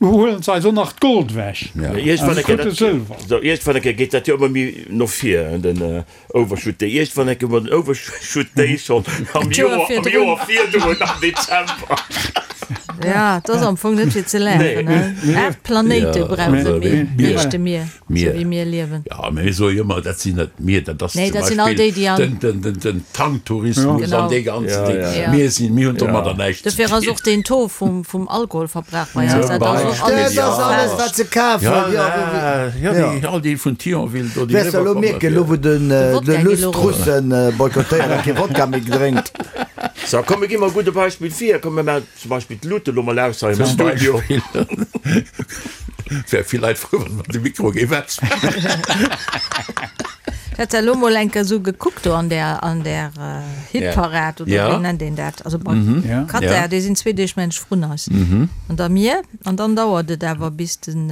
huelen se eis och nach d'Gold ewech an de krute Sëlwer. Iergendwann eng Kéier geet dat jo ëmmer méi no vir, den Overshoot Day. Iergendwann eng Kéier hu mer den Overshoot Day schonn am Joer virdrun, am Dezember. Ja, et ass am Fong net fir ze laachen. 8 Planéite brauche mir, meeschte mir. Sou wéi mir liewen. Jo, mä mir soe jo ëmmer, dat sinn net mir, dat ass Nee, zum dat sinn all Beispill déi, déi an. den, den, den, den Tanktourismus Genau. an dee ganzen Ding. Ja. Mir sinn, mir hunn domadder näischt ze Dofir ass dinn. och deen Taux vum, vum Alkoholverbrauch bei eis, Zum dat ass och Beispill, alles Dat ass alles, falsch. wat se kafen. Ja, Jo, ja, jo. déi, all déi vun Thionville do, déi Wäers de elo eriwwerkommen mierken, elo fir. wou den, De de Wodka geet Luss elo erop. d'Russen boykottéiert a kee Wodka méi drénkt. So, komm, mir gi mol e gudde Beispill vir. Komm, mir maachen zum Beispill d'Luuten elo mol aus hei am Zum Studio. Beispill. Et wäre vill Leit frou, wann de Mikro géif ausmaachen. Ech hat elo mol eng Kéier esou gekuckt do an där, an där Hitparad oder wéi nennt een dat? Also bei Qatar, déi sinn zwee Deeg mensch vrun eis. An da mir. An dann dauert et awer bis den,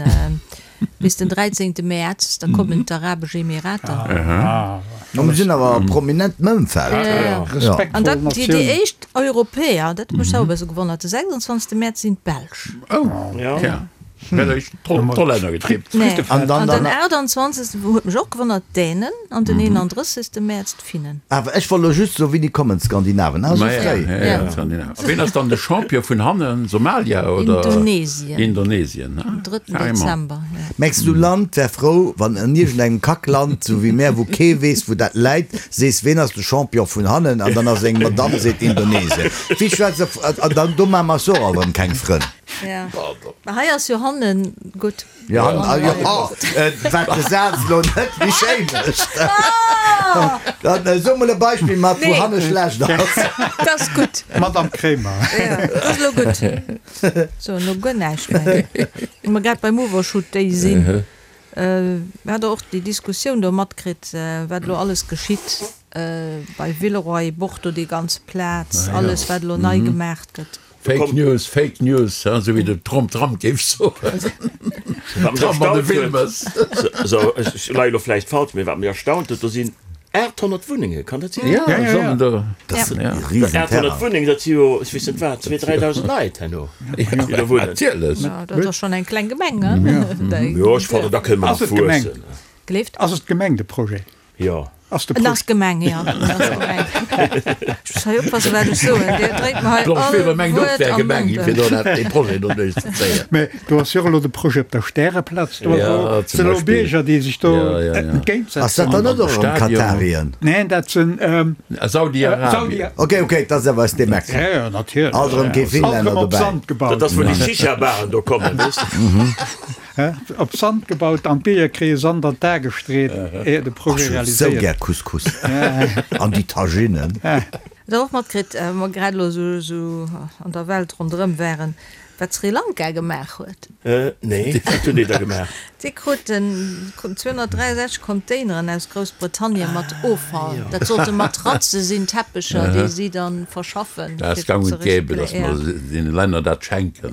bis den 13. Mäerz, da kommen d'Arabesch Emirater. No mir sinn awer prominent am Ëmfeld. An dat, déi, déi éischt Europäer, dat huet mech selwer e bësse gewonnert, de 26. Mäerz sinn d'Belsch. Oh, ja. D'Hollänner getippt. An den 28. Huet mech och gewonnert, d'Dänen an den 31. Mäerz d'Finnen. Awer ech wollt lo just soen, wéini kommen d'Skandinaven? Ah, esou fréi. A ween ass dann de Champion vun hannen? Somalia oder? Indonesien. Indonesien, am 3. Dezember. Mengs du Land wär frou, wann an iergendengem Kackland, sou wéi mär, wou kee weess wou dat läit, sees ween ass de Champion vun hannen an dann ass eng Madame seet Indonesien. Wéi schwätzt an dann do maache mer eis och alt erëm keng Frënn. Ja, mä hei ass jo hannen gutt. Jo, wat de Saz elo net méi schéi mécht. Dann so mol e Beispill mat wou hanne schlecht ass. Dat ass gutt. Madame Kremer. Ja, dat ass elo gutt. So, elo guer näischt méi. Wa mer grad beim Overshoot Day sinn, hat Der och déi Diskussioun do matkritt, wat elo alles geschitt bei Villeroy, Bordeaux, déi ganz Plaz, alles wat elo nei gemaach gëtt? Fake News, Fake News, esou wéi de Trump Trump géif soen. Trump an de Wilmes. Sou, ech leie lo vläicht falsch, mee wat mech erstaunt huet, do sinn 800 Wunnenge, kann dat sinn? Ja, sollen do. Dat ass e Risenterrain. 800 Wunnengen, dat si jo, ech weess net wat, zwee, 3.000 Leit herno, déi do wunnen. Natierlech. Dat ass schonn eng kleng Gemeng, ne? Jo, ech fannen, da kënne mer nach wuessen. Gleeft. Ass et d'Gemeng, de Projet? Jo. Ass de En ass Gemeng, jo. En ass Gemeng. Ech muss hei oppassen, wat ech soen. Dir dréit mer hei Blanche all Weber mengt och, Wuert wär am Gemeng, Mond. fir do dat, dee Projet do duerchzezéien. Mä do ass jo och elo de Projet op der Stäreplaz. Do Ja, zum sinn elo Beispill. Bierger, déi sech do Ja, ja, ja. entgéintsetzen. Ass dat dann net An och erëm Stadion. Katarien? Neen, dat sinn Saudi-Arabien. Saudi. Ok, ok, dat ass awer aus deem Eck. Ja, ja, natierlech. Alt erëm kee Alt Finlänner erëm op dobäi. Sand gebaut. Dat ass, wou déi Shisha-Baren do kommen, weess de. Op Sand gebaut an d'Bierger kréie Sand an d'A gestreet, éier de Projet Ech hu sou realiséiert. gär Couscous an déi Taginen. Hutt der och matkritt, wa mer grad elo esou an der Welt ronderëm waren, wat Sri Lanka gemaach huet? Nee, wat hunn déi da gemaach? Déi kruten 263 Containeren aus Groussbritannien mat Offall. Dat sollte Matratze sinn, Teppecher, déi si dann verschaffen. Dat ass gang und gäbe, datt mer deene Länner dat schenken.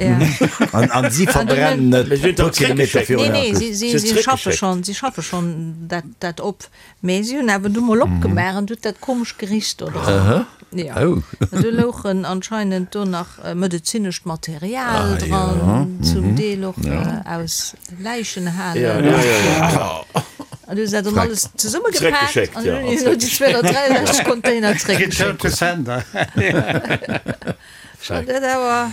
An si verbrennen et e puer Kilometer virun Nee, der nee, Küst. si schaffe schonn, si schaffe schonn dat op. Mee si hunn awer du mol opgemaach an du huet dat komesch gericht do dran. Jo. An do louchen anscheinend do nach medezinescht Material dran, zum Deel och aus Läichenhalen. An du hu se dat dann alles zesummegepaakt an hunn elo déi 263 Container zréckgeschéckt. Return to sender. Schon dat awer.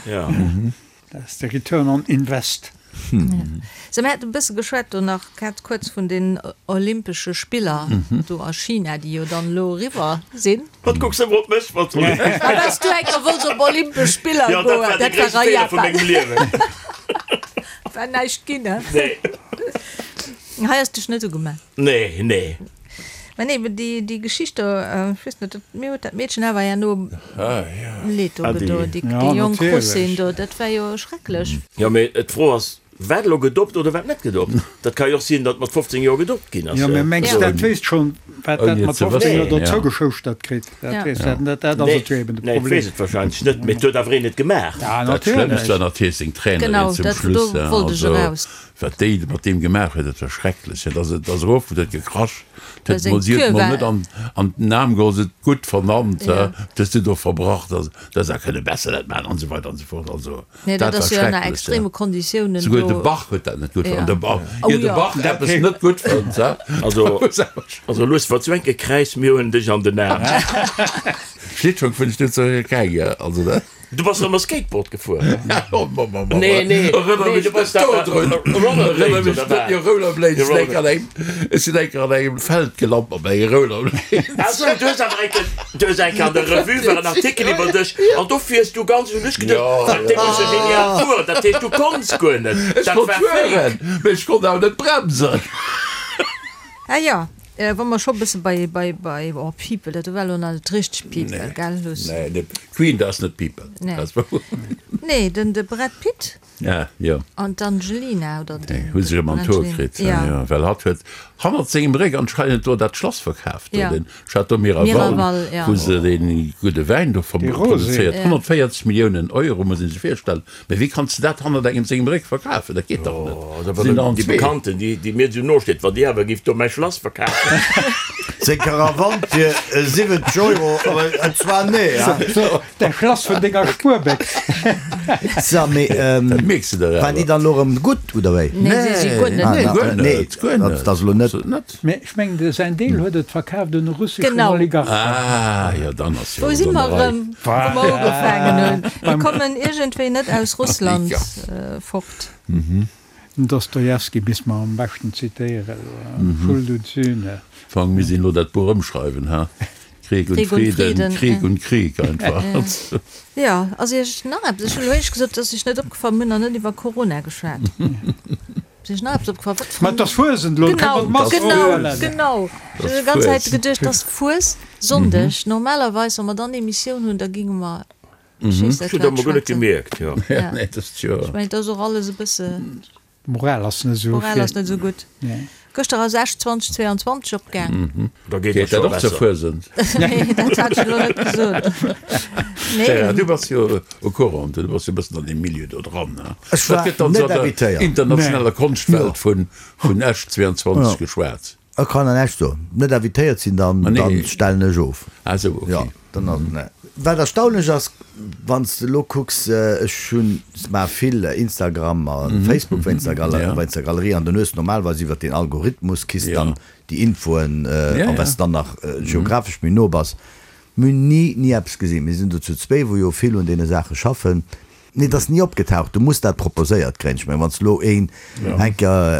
Dat ass de Return on Invest. Sou, mir haten e bësse geschwat do nach grad kuerz vun den Olympesche Spiller do a China, déi jo dann elo eriwwer sinn. Wat kucks de ëmmer op mech, wat soll ech? A well s du eng Kéier wollts op Olympesch Spiller Jo, dat goen, war de dat war gréisste a Feeler vu Japan. mengem Liewen. War näischt ginn, he? Nee. Hei ass dech net ugemellt. Nee, nee. Mä nee, déi, déi Geschicht do, ech weess net, mir huet dat Meedchen awer herno leed do gedoen, déi, déi jonk Russin do, dat war jo schrecklech. Jo, mee d'Fro ass, wat elo gedopt oder wat net gedopt? Dat ka jo och sinn, datt mat 15 Joer gedopt ginn ass. Jo, mä mengs de, dat wéisst schonn, wat dat mat 15 Joer do zougeschouschtert kritt? Dat weess dat net, dat ass et jo eben de Problem. Nee, et weess et wahrscheinlech net, mee et huet awer een et gemaach. Dat Schlëmmst war natierlech seng Trainerin zum Schluss, also Wat déi mat deem gemaach huet, dat war schrecklech. Dat ass, et ass erof, huet gekrasch, huet mol, si huet mol net an, an den Aarm geholl, se huet gutt vernannt, wat hues du do verbracht, also, du häss awer kënne besser dat maachen an esou weider an esou fort. Also, dat war schrecklech, ja. Souguer de Bach huet dat net gutt fonnt, de Bach, ier de Bach eppes net gutt fënnt, ha. Also, also lues, wat sou enke Kräiz, mir huelen dech an den Aarm. Schlittschong vun Stuttgart, also dat. Du bass ëmmer Skateboard gefuer? Nee, nee, Erënner nee, mech du bass net da dodrun. Rollerblades Erënner mech oder net, wat? jo, Rollerblades, sinn enker an engem, ech sinn enker an engem Feld gelant mat menge Rollerblades. Ah sou, du hues awer enker, du hues enker an der Revue war en Artikel iwwer dech an do fiers du ganz, hunn ech geduecht, Jo, wat, dee muss jo genial fueren, dat heescht du konns guer net, Ech dat konnt war fake. fueren, mee ech konnt awer net bremsen. Ah jo, wa mer scho bësse bei, bei, bei, oh People, dat war elo nach net richteg People, gell, Luss? Nee, nee, Queen, dat ass net People. Nee. Nee, den de Brad Pitt Ja, jo. an d'Angelina, oder den. Hu sech ëm an d'Hoer kritt, Ja. jo, well hatt huet hannert sengem Réck anscheinend do dat Schlass verkaaft, do Ja. den Château Miraval, Miraval, ja. wou se dee gudde Wäin do Dee Rosé. produzéiert. 140 Milliounen Euro, muss ee sech virstellen. Mee wéi kanns de dat hannert engem sengem Réck verkafen? Dat geet dach net. Oh, da wann déi Bekannten, déi, déi mir esou no steet, wann déi awer géif do mäi Schlass verkafen. Seng Karawann fir 70 Euro, awer zwar nee, ha? Däi Schlass vun denger Spuerbéchs. So, mee Dat mierks de der waren déi awer. dann elo erëm gutt, oder wéi? Nee, si si guer net Ah, gutt. Guer nee, net, guer net. dat ass elo net. Net. Mee ech mengen, de säin Deel huet et verkaaft un e russeschen Genau. Oligarchen. Ah, jo, dann ass jo Wou alles si an mer der Rei. erëm, wou mer ugefaangen hunn? Mir Beim. kommen iergendwéi net aus Russland Ja. fort. Den Dostojewski misst mer am beschten zitéieren, Schuld und Sühne. Fang, mir sinn elo dat Buch ëmschreiwen, ha? Krieg und Krieg und Frieden, Frieden, Krieg und Krieg einfach. Jo, ass Iech nach eppes, ech hunn elo éischt gesot, et ass Iech net opgefall, mir hunn nach net iwwer Corona geschwat. Ass Iech nach eppes opgefall? Wat Ma et ass Fuesent elo, Genau, kënne mer d'Mask genau, ofhuelen. genau. Ech hunn déi ganz Zäit geduecht, et ass Fuessonndeg. Normalerweis, wa mer dann Emissioun hunn, da géinge mer Ech hunn dat emol guer net gemierkt, jo. Ja. Ech mengen, et ass och alles e bësse. D'Moral ass net esou. D'Moral ass net esou gutt. Gëschter ass Esch 2022 opgaang. Da geet dat dat scho och zur besser. Fuesent? Nee, dat hat ech elo net gesot. Nee. Gérard, du bass jo au courant, du bass jo e bëssen an deem Milieu do dran, ne? Ech war Wat gëtt dann net esou an der invitéiert. internationaler Konschtwelt vun, vun Esch 22 geschwat? Ech kann an Esch soen, net invitéiert sinn, dann, Ah, nee. dann stellen ech of. Ah sou, okay. Jo, dann ass, ne. Wat erstaunlech ass, wann s de elo kucks, ech hunn, maache vill Instagram a Facebook wéinst der Galerie, Ja. wéinst der Galerie, an dann hues de normalerweis iwwert den Algorithmus kriss Ja. dann déi Infoen, Ja, a ja. wa s de dann nach geographesch méi no bass. Mir hunn ni, ni eppes gesinn. Mir sinn do zu zwéi, wou jo vill un deene Saache schaffen. Nee, et ass ni opgetaucht. Du muss dat proposéiert kréien. Ech mengen, wann s de elo een eng Kéier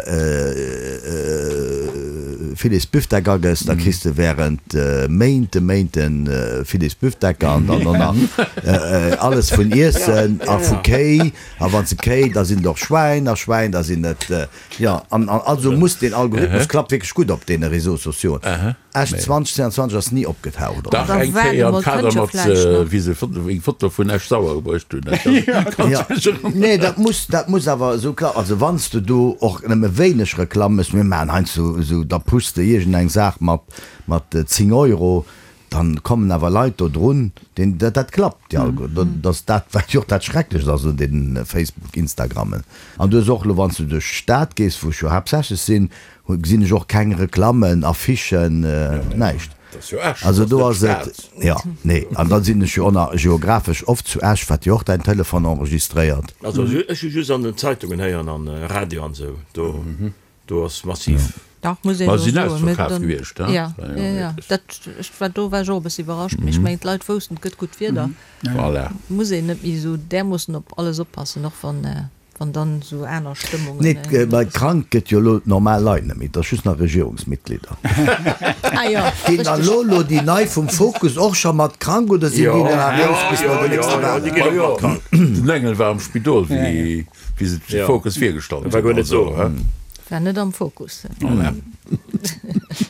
Filets Büfdeck agëss, da kriss de während Méinte, Méinte Filets Büfdecker an dann och nach alles vun Iessen a vu Kéi. A wann s de Kéi, da sinn et och Schwäin a Schwäin, da sinn et, jo. An also muss deen Algorithmus klappt wierklech gutt op deene Réseaux sociaux. Esch 2022 ass ni opgetaucht, oder? Dach, eng Kéier am Kader mat, wéi se eng Foto vun Esch-Sauer gebruecht hunn. Nee, dat muss, dat muss awer esou klappen. Also wann s de do och nëmme wéineg Reklamm méchs, mir maachen heiansdo esou, da pushs de iergendeng Saach mat, mat 10 Euro, dann kommen awer Leit do drun, deen, dat, dat klappt, déi Algo, dat ass dat, wat jo och dat Schrecklechst ass un deenen Facebook, Instagrammen. An du hues och elo, wann s du duerch d'Stad gees, wou ech jo haaptsächlech sinn, Gesinn ech och keng Reklammen, Affichen, näischt. Also do ass et, jo, nee. An da sinn ech jo och nach geographesch oft zu Esch, wat jo och däin Telefon enregistréiert. Also ech hu just an den Zeitungen héieren an Radio an esou, do do ass massiv. Dach, muss een Ma elo sinn soen. Mee ausverkaaft dann, gewiescht, he? ja, ja, ja, dat, ech war, do war ech och e bësse iwwerrascht, mee ech mengen d'Leit woussten, et gëtt gutt Wieder, Voilà. muss een net méi esou därmoossen op alles oppassen, och wann. Wann dann esou aner Stëmmungen. Nee, well krank gëtt jo elo normal Leit net méi, et ass just nach Regierungsmitglieder. Ah jo, Ginn dann elo elo déi nei vum Fokus och scho mat krank oder sinn déi nach eraus bis no den nächste Wahlen? Den Engel war am Spidol wéi se de Fokus virgestallt hunn. Also, he? War net am Fokus.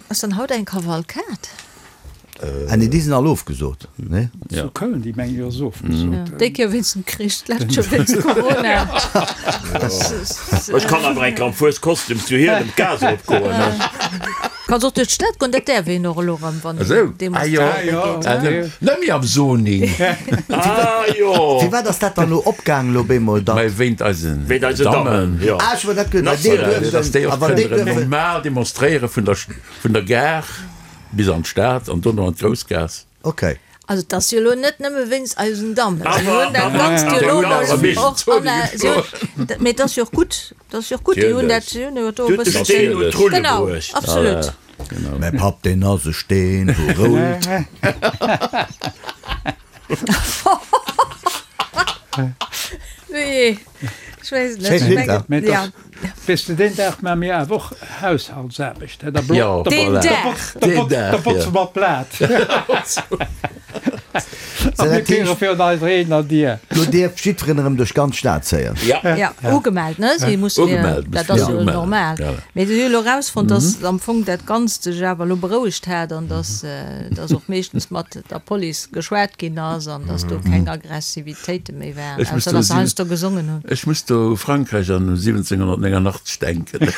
Ass dann haut eng Kavalkad? Ah nee, déi sinn all ofgesot, nee? Zu Köln, déi mengen ech ass ofgesot. Déi Kéier wéinst dem Krich, d'lescht Joer wéinst Corona. Ech kann awer eng Kéier am Fueskostüm zu Hielem d'Gaass eropgoen, ne? Kanns och duerch d'Stad goen, dat däerf een och elo erëm, wann een demonstréiere geet, ne? Net méi am Zoning. Ah jo! Firwat ass dat dann elo opgaang elo bemol, datt. Mä wéint eisen Dammen, jo. Ah, ech wollt dat gëtt, well déi duerfen, a wann déi duerfen. Normal demonstréiere vun der Gare. Bis an d'Stad an dono an d'Groussgaass. Ok. Also et ass jo elo net nëmme wéinst eisen Dammen. Si hunn dat Ganzt jo elo mol och an der, si hunn, mee et ass jo och gutt, et ass jo och gutt, déi hunn dat, si hunn jo do e bëssen. Steen un d'Rulle Genau, bruecht. absolut. Mäi Papp deen ass e Steen wou roult. Nee, ech weess et net. Schéin Ech Lidd, mengen, Mee ja. Weess de, deen Dag maache mir awer och Haushaltsaarbecht, hä? Da Jo, Deen voilà. Dag! Da Deen Dag, botze ja. mer d'Blat. A mir kréie virun eiser eegener Dier. Do dierf jiddferen erëm duerch d'ganz Stad zéien. Ja. Ja, ugemellt, ne? Si mussen jo, Ugemellt, dat muss ass jo ugemellt, normal. ja. Mee si hu elo erausfonnt, dass am Fong dat Ganzt sech awer elo berouegt hat an dass, dass och meeschtens mat der Police geschwat ginn ass an dass do keng Aggressivitéite méi waren, Ech muss ausser do dass se si, heiansdo gesongen hunn. ech muss do u Frankräich an u 1789 denken.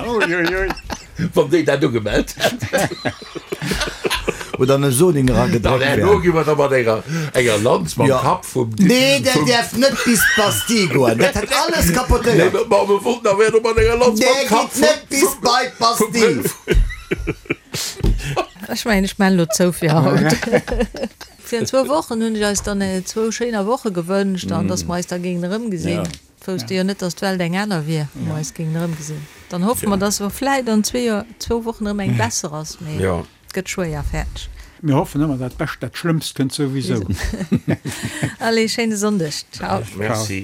Uiuiui. Wann déi dat ugemellt hätten. Oder an e Soning Dann eragedréckt herno wären. gi mer da mat enger, enger Lanz mam Jo. Kapp vum, Nee, der vum. däerf net bis d'Bastille goen. Dat hätt alles Nee, kapotéiert. ma mer wollten awer herno mat enger Lanz mam Der Kapp geet net vum, bis vum, bei vum, d'Bastille. vum. Ech mengen, ech maan elo zou fir haut. Fir an zwou Wochen hunn ech eis dann zwou schéiner Woche gewënscht an dass mer eis da géingen erëmgesinn. Wousste jo net, dass d'Welt eng aner wier, wou mer eis géingen erëmgesinn. Dann hoffe mer, dass se vläit an zwee Joer, zwou Wochen erëm eng besser ass, mee et gëtt schwéier. Fäerdeg. Mir hoffen ëmmer dat Bescht, dat Schlëmmst kënnt souwisou. Allez, schéine Sonndeg. Ciao. Merci.